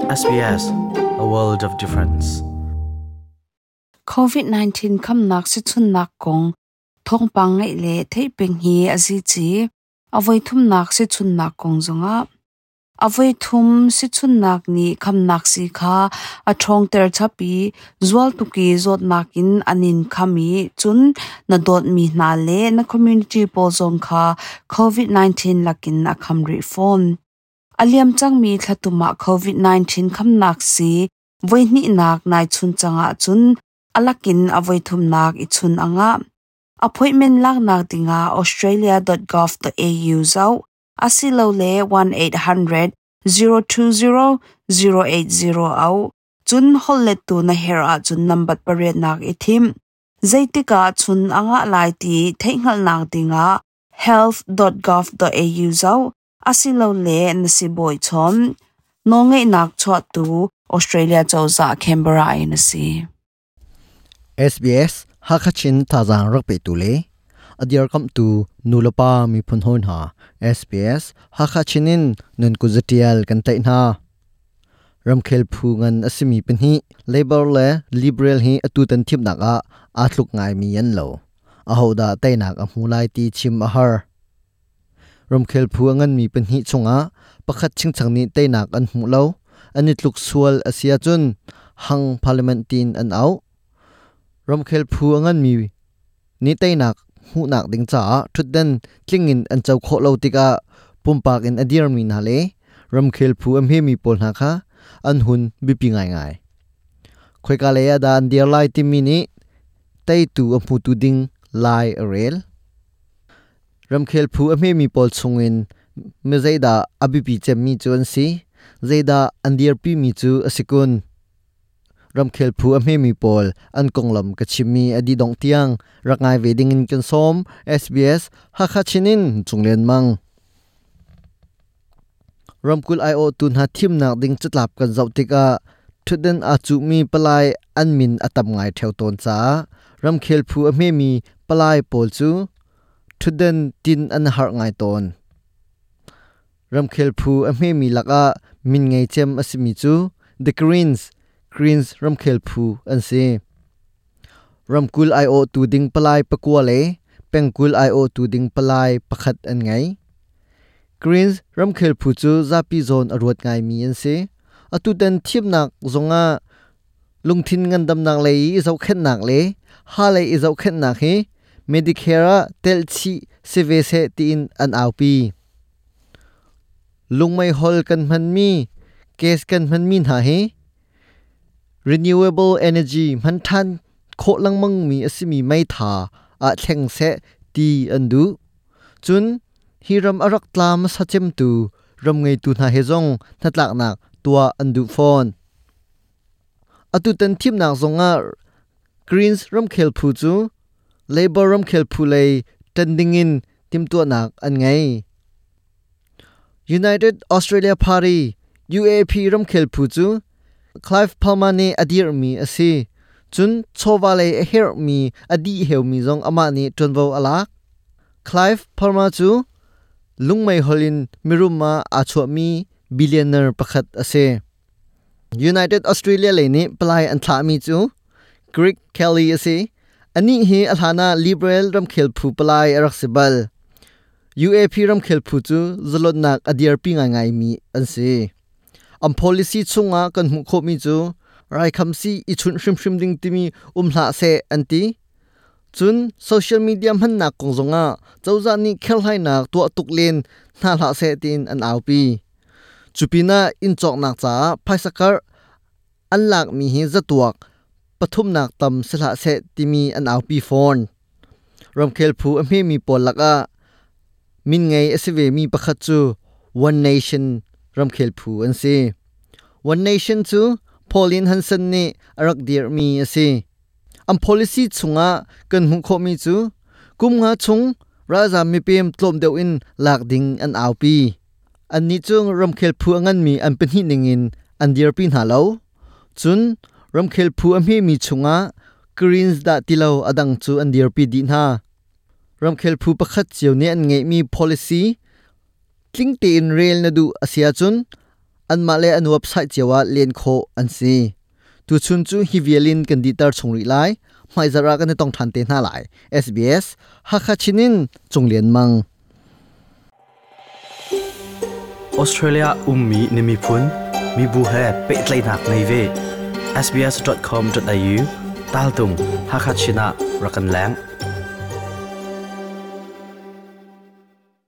SBS, a world of difference. COVID-19 khamnak sichunnak kong thawngpang ngaih le theih peng hi a zici. A voi thumnak sichunnak kong zongah a voi thum sichunnak nih khamnak si kha a ṭhawngter chap i zual tuk i zawtnak in an in kham i cun na dawtmi hna le na community pawl zong kha COVID-19 lakin a kham rih fawn. A liam cangmi thlatum ah COVID-19 khamnak si voihnihnak nai chun cang ahcun a lakin a voithumnak i chun a ngah. Appointment laknak dingah australia.gov.au zoh asilole 1800 020 080 au. Cun holhlettu na herh ahcun nambat pariatnak i thim. Zeitik ah chun a ngah lai ti theihhngalhnak dingah health.gov.au zoh asilole na sibawi chawn. Nawlngeihnak chuahtu Australia cozah Canberra in a si. SBS Hakachin thazaang rak petu le a dirkamhtu nulepa miphun hawi hna SBS Hakachin in nun kuzatial kan tlaih hna. Ramkhel phu ngan a simi pahnih Labor le Liberal hi atu tan thimnak ah aa tluk ngaimi an lo. Ahodah teinak a hmu lai ti chim a har. Ramkhel phu a nganmi pahnih chungah pakhat chingchang nih teinak an hmuh lo. An i tluk sual a si ahcun hang parliament tiin an auh. Ramkhel phu a nganmi nih teinak hmuhnak ding caah ṭhutdan tling in an co khawh lo tikah pumpak in a dirmi hna le ramkhel phu a hmemi pawl hna kha an hun biapi ngaingai. Khoika lei ah dah an dir lai timi nih teitu a hmutu ding lai a rel. Ramkhel phu a hmemi pawl chungin mi zeidah a biapi cemmi cu an si, zeidah an dirpimi cu a si kun? Ramkhel phu a hmemi pawl an konglam ka chimmi a dih dongh tiang rak ngai ve ding in kan sawm. SBS Hakha Chin in Cunglen Mang. Ramkulh aiawhtu hna thimnak ding catlap kan zoh tikah ṭhutdan aa cuhmi palai an min a tam ngai ṭheo tawn caah ramkhel phu a hmemi palai pawl cu ṭhutdan tin an harh ngai tawn. Ramkhel phu a hmemi lakah min ngei cem a simi cu The Greens, Greens ramkhel phu an si. Ramkulh aiawhtu ding palai pakua le pengkulh aiawhtu ding palai pakhat an ngei. Greens ramkhel phu cu zapi zawn a ruat ngaimi an si. Atutan thimnak zongah lungthin ngandamnak lei i zohkhenhnak le ha lei i zohkhenhnak hi Medicare ah telhchih si ve seh tiin an aupi. Lungmeihol kan hmanmi, gas kan hmanmi hna hi renewable energy hman ṭhan khawh lengmangmi a simi meitha ah thleng seh ti an duh. Cun hi ram a rak tla hmasa cemtu ram ngeitu hna he zong hnatlaknak tuah an duh fawn. Atutan thimnak zongah Greens ramkhel phu cu Labour ramkhel phu lei ṭan dingin timhtuahnak an ngei. United Australia Party UAP ramkhel phu cu Clive Palmer nih a dirhmi a si. Cun chawva lei a herhmi a dih heumi zong amah nih ṭuanvo a lak. Clive Palmer cu lungmeihol in mirum ah aa chuahmi billionaire pakhat a si. United Australia lei nih palai an thlahmi cu Greg Kelly a si. Anih hi a hlan ah Liberal ramkhel phu palai a rak si bal. UAP ramkhel phu cu zalonnak a dirpi ngaingaimi an si. An policy chungah kan hmuh khawhmi cu raikhamsi i chunh hrimhrim ding timi um hlah seh an ti. Cun social media hmannak kong zongah cozah nih kherhlainak tuah tuk len hna hlah seh tiin an aupi. Cupinah inn cawknak caah phaisa karh an lakmi hi zatuak pathumnak tam si hlah seh timi an aupi fawn. Ramkhel phu a hmemi pawl lakah min ngei a si vemi pakhat cu One Nation ramkhel phu an si. One Nation cu Pauline Hanson nih a rak dirhmi a si. An policy chungah kan hmuh khawhmi cu kum nga chung ralzaam mipem tlawm deuh in lak ding an aupi. Annih cu ramkhel phu a nganmi an pahnih ningin an dirpi hna lo. Cun ramkhel phu a hmemi chungah Greens dah ti lo a dang cu an dirpi dih hna. Ramkhel phu pakhat cio nih an ngeihmi policy tling tein rel na duh a si ahcun Anmah le an website cio ah len khawh an si. Tuchun cu hi vialin kan dihter chung rih lai. Hmaizarh ah kan i tong ṭhan te hna lai. SBS Hakha Chin in Cung Lian Mang. Australia ummi na miphun, mibu he pehtlaihnak ngei ve. sbs.com.au tal tung Hakha Chin ah rak kan leng.